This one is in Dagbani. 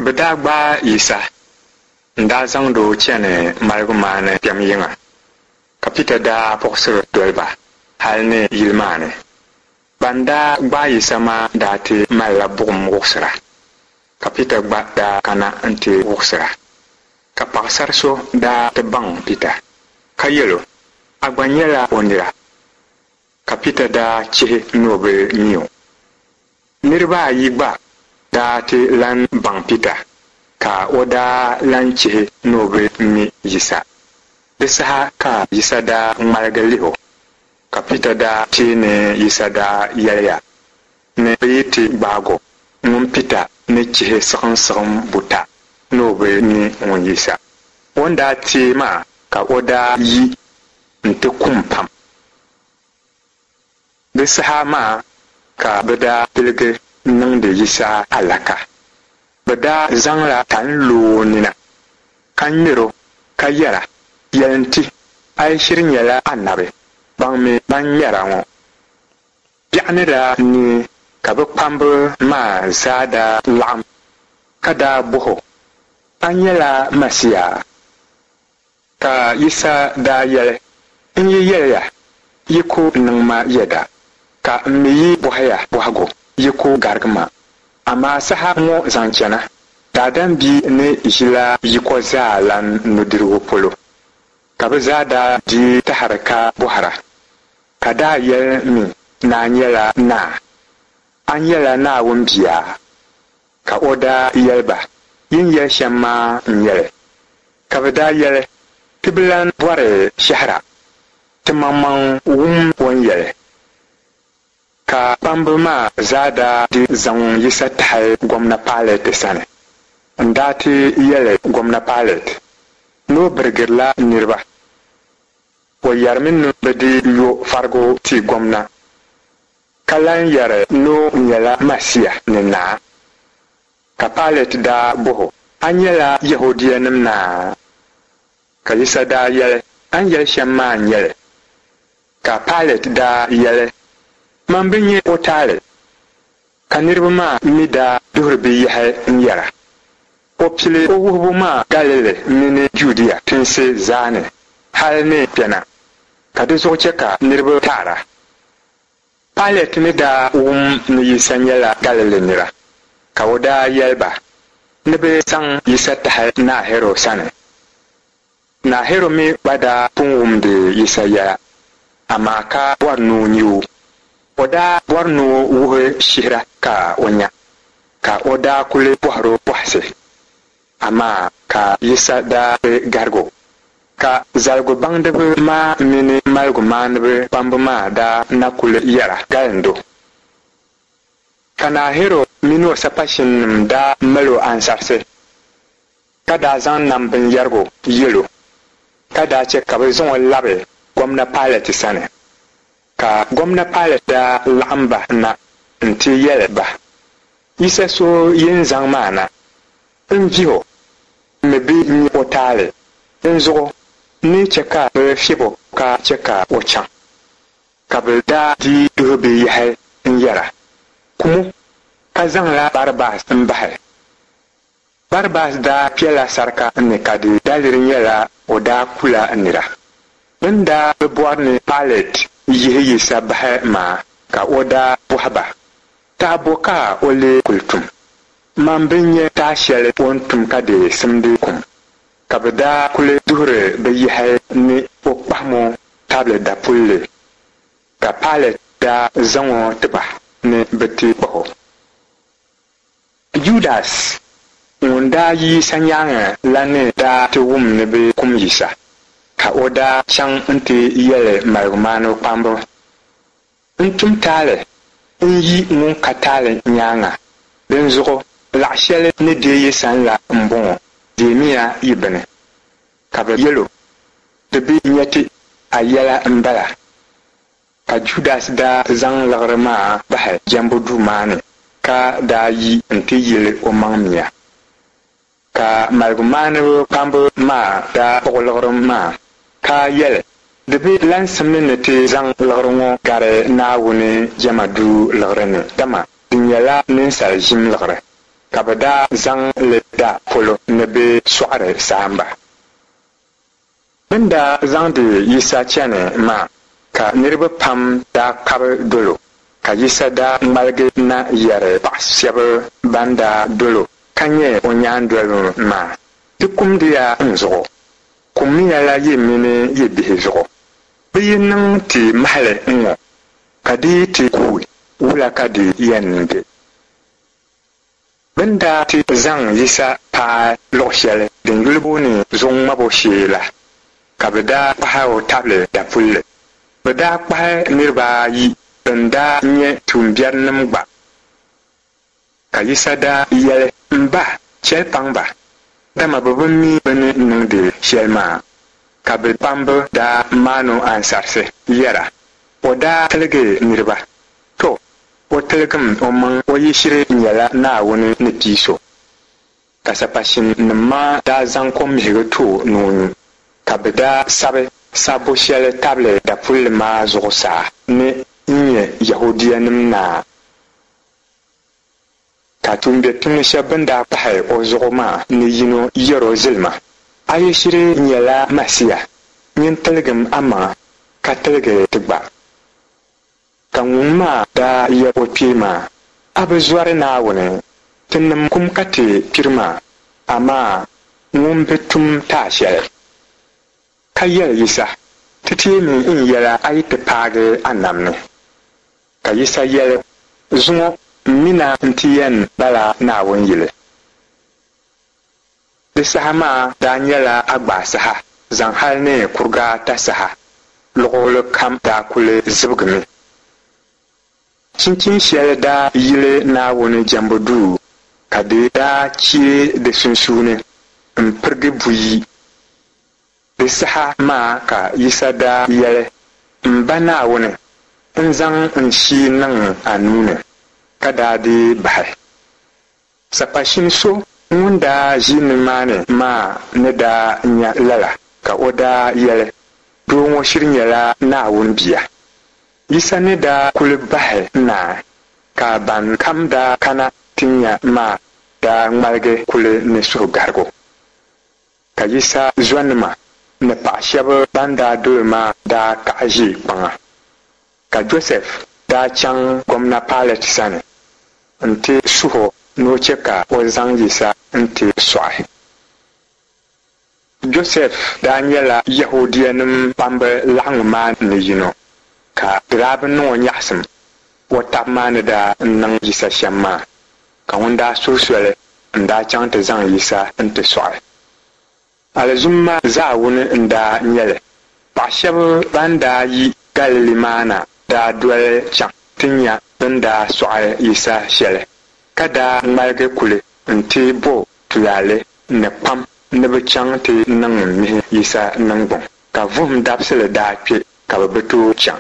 Bɛ daa gbaai Yisa n-daa zaŋdi o chani maligumaani kpɛm yiŋa, ka Pita daa puɣisiri doli ba hal ni yili maa ni. Ban daa gbaai Yisa maa daa ti malila buɣim wuɣisira, ka Pita gba daa kana nti wuɣisira. Ka paɣisar so daa ti baŋ Pita, ka yɛl o, A gba nyɛla o nira. Ka Pita daa chihi ni o bi mi o. Niriba ayi gba daa ti lan baŋ Pita, ka o daa lan chihi ni o bi mi Yisa. Di saha ka Yisa daa ŋmaligi lih o, ka Pita daa teei ni Yisa daa yɛliya ni bɛ yi ti gbaag o, ŋun Pita ni chihi siɣimsiɣim buta ni o bi mi ŋun Yisa. O ni daa teei maa ka o daa yi nti kum pam. Di saha maa ka bɛ daa piligi niŋdi Yisa alaka. Bɛ daa zaŋla tani lo o nina, ka ŋmer o, ka yɛra, Yɛlim ti, a yi shiri nyɛla anabi, baŋmi ban ŋmɛr a ŋɔ. Biɛɣu ni daa neei ka bɛ kpamba maa zaa daa laɣim ka daa bɔh o, A nyɛla Masia? Ka Yisa daa yɛli, N yi yɛli ya, yi ku niŋ ma yɛda, ka m mi yi bɔhi ya bɔhigu, yi ku garigi ma. Amaa saha ŋɔ zaŋ chana, Daadam Bia ni ʒila yiko zaa lan nudirigu polo. Ka bɛ zaa daa dii tahiri ka bɔhira, ka daa yɛli mi ni a nyɛla naa? A nyɛla Naawuni Bia? Ka o daa yɛli ba, Yi ni yɛli shɛm maa n-nyɛ li. Ka bɛ daa yɛli, Ti bi lan bɔri shɛhira, timaŋmaŋ wum o ni yɛli. Ka kpamba maa zaa daa di zaŋ Yisa tahi Gomna Pailɛt sani n-daa ti yɛli Gomna Pailɛt ni o birigirila niriba. O yɛrimi ni bɛ di yo farigu ti Gomna, ka lan yɛri ni o nyɛla Masia ni Naa. Ka Pailɛt daa bɔh o, A nyɛla Yɛhudianim naa? Ka Yisa daa yɛli, A ni yɛli shɛm maa n-nyɛ li. Ka Pailɛt daa yɛli, Man bi nya o taali. Ka niriba maa mi daa duhiri bɛ yɛhi n-yɛra, O pili o wuhibu maa Galili mini Judia tinsi zaa ni hal ni kpɛna, ka di zuɣu chɛ ka niriba taara. Pailɛt ni daa wum ni Yisa nyɛla Galili nira, ka o daa yɛli ba ni bɛ zaŋ Yisa tahi Naa Hɛrɔd sani. Naa Hɛrɔd mi gba daa pun wumdi Yisa yɛla, amaa ka bɔri ni o nya o. O daa bɔri ni o wuhi shihira ka o nya, ka o daa kuli bɔhir o bɔhisi, amaa ka Yisa daa bi garig o. Ka zaligubaŋdiba maa mini maligumaaniba kpamba maa daa na kuli yɛra galind o. Ka Naa Hɛrɔd min o sapashinnim daa mal o ansarisi. Ka daa zaŋ nam binyɛrigu yɛl o, ka daa chɛ ka bɛ zaŋ o labi Gomna Pailɛt sani. Ka Gomna Pailɛt daa laɣim ba na nti yɛli ba, Yisa so yi ni zaŋ maa na, n vih o, m mi bi nya o taali, dinzuɣu n ni chɛ ka bɛ fiɛb o ka chɛ ka o chaŋ. Ka bɛ daa dii duhi bɛ yɛhi n-yɛra, Kum o, ka zaŋla Barabas m-bahi. Barabas daa kpɛla sarika ni ka di daliri nyɛla o daa kula nira. Bɛ ni daa bi bɔri ni Pailɛt yihi Yisa bahi maa ka o daa bɔhi ba, Tah bo ka o lee kul tum? Man bi nya tah shɛli o ni tum ka di simdi kum. Ka bɛ daa kuli duhiri bɛ yɛhi ni o kpahim o tabili dapulli, ka Pailɛt daa zaŋ o ti ba ni bɛ ti kpah o. Judas ŋun daa yi Yisa nyaaŋa la ni daa ti wum ni bɛ kum Yisa, ka o daa chaŋ nti yɛli maligumaaniba kpamba, N tum taali n-yi ŋun ka taali nyaaŋa, dinzuɣu laɣ shɛli ni deei yi san la m-bɔŋɔ, deemiya yi bini. Ka bɛ yɛl o, Di bi nya ti, a yɛla m-bala. Ka Judas daa zaŋ liɣiri maa bahi jɛmbu duu maa ni, ka daa yi nti yili omaŋ mia. Ka maligumaaniba kpamba maa daa kpuɣi liɣiri maa, ka yɛli, Di bi lan simdi ni ti zaŋ liɣiri ŋɔ gari Naawuni jɛma duu liɣiri ni, dama di nyɛla ninsal ʒim liɣiri. Ka bɛ daa zaŋ li da polo ni bɛ sɔɣiri saamba. Bɛ ni daa zaŋdi Yisa chani maa, ka niriba pam daa kpabi dol o, ka Yisa daa ŋmaligi na yɛri paɣ shɛb bɛn daa dol o ka nyɛ o nyaandoliba maa, Di kumdiya n zuɣu, kummiyala yi mini yi bihi zuɣu. Bɛ yi niŋ ti mahili ŋ-ŋɔ, ka di yi ti kuui, wula ka di yɛn be? Bɛ ni daa ti zaŋ Yisa paai luɣ shɛli din yuli booni Zuɣu Ŋmabu Shee la, ka bɛ daa kpahi o tabili dapulli. Bɛ daa kpahi niriba ayi bɛn daa nyɛ tuumbiɛrinim gba. Ka Yisa daa yɛli, M Ba, chɛli paŋ ba, dama bɛ bi mi bɛ ni niŋdi shɛli maa. Ka bɛ kpamba daa maan o ansarisi yɛra, O daa tiligi niriba. To, o tiligim omaŋ o yi shiri nyɛla Naawuni ni pii so. Ka sapashinnim maa daa zaŋ kommihigu ti o ni o nyu, ka bɛ daa sabi sabbu shɛli tabili dapulli maa zuɣusaa ni, N-nyɛ Yɛhudianim Naa. Ka tuumbiɛtumdi shɛb bɛn daa kpahi o zuɣu maa ni yino yɛr o zilima, A yi shiri nyɛla Masia, nyin tiligim amaŋa ka tiligi ti gba. Ka ŋun maa daa yɛl o kpee maa, A bi zɔri Naawuni, tinim kum ka ti kpiri maa, amaa ŋun bi tum taai shɛli. Ka yɛli Yisa, Ti teemi n yɛla a yi ti paagi a nam ni. Ka Yisa yɛli, Zuŋɔ m mi na nti yɛn bala Naawuni yili. Di saha maa daa nyɛla agbaa saha zaŋ hal ni kuriga ata saha, luɣili kam daa kuli zibigimi. Chinchin shɛli daa yili Naawuni jɛmbu duu, ka di daa chee di sunsuuni m-pirigi buyi. Di saha maa ka Yisa daa yɛli, M Ba Naawuni, n zaŋ n shii niŋ a nuu ni, ka daa dii bahi. Sapashin so ŋun daa ʒi nimaani maa ni daa nya lala, ka o daa yɛli, Doo ŋɔ shiri nyɛla Naawuni Bia. Yisa ni daa kuli bahi naai, ka ban kam daa kana ti nya maa daa ŋmaligi kuli ni suhugarigu. Ka Yisa zɔnima ni paɣ shɛb bɛn daa dol o maa daa kaɣi ʒi kpaŋa. Ka Josɛf daa chaŋ Gomna Pailɛt sani nti suh o ni o chɛ ka o zaŋ Yisa nti sɔɣi. Josɛf daa nyɛla Yɛhudianim kpamba laɣiŋgu maa ni yino, ka di daa bi niŋ o nyaɣisim o tab maa ni daa niŋ Yisa shɛm maa, ka ŋun daa suhi soli n-daa chaŋ ti zaŋ Yisa nti sɔɣi. Alizumma zaawuni n-daa nyɛ li. Paɣ shɛb bɛn daa yi Galili maa na daa doli chaŋ ti nya bɛ ni daa sɔɣi Yisa shɛli, ka daa ŋmaligi kuli nti bo tulaale ni kpam ni bɛ chaŋ ti niŋ mihi Yisa niŋgbuŋ. Ka vuhim dabisili daa kpe ka bɛ bi tooi chaŋ.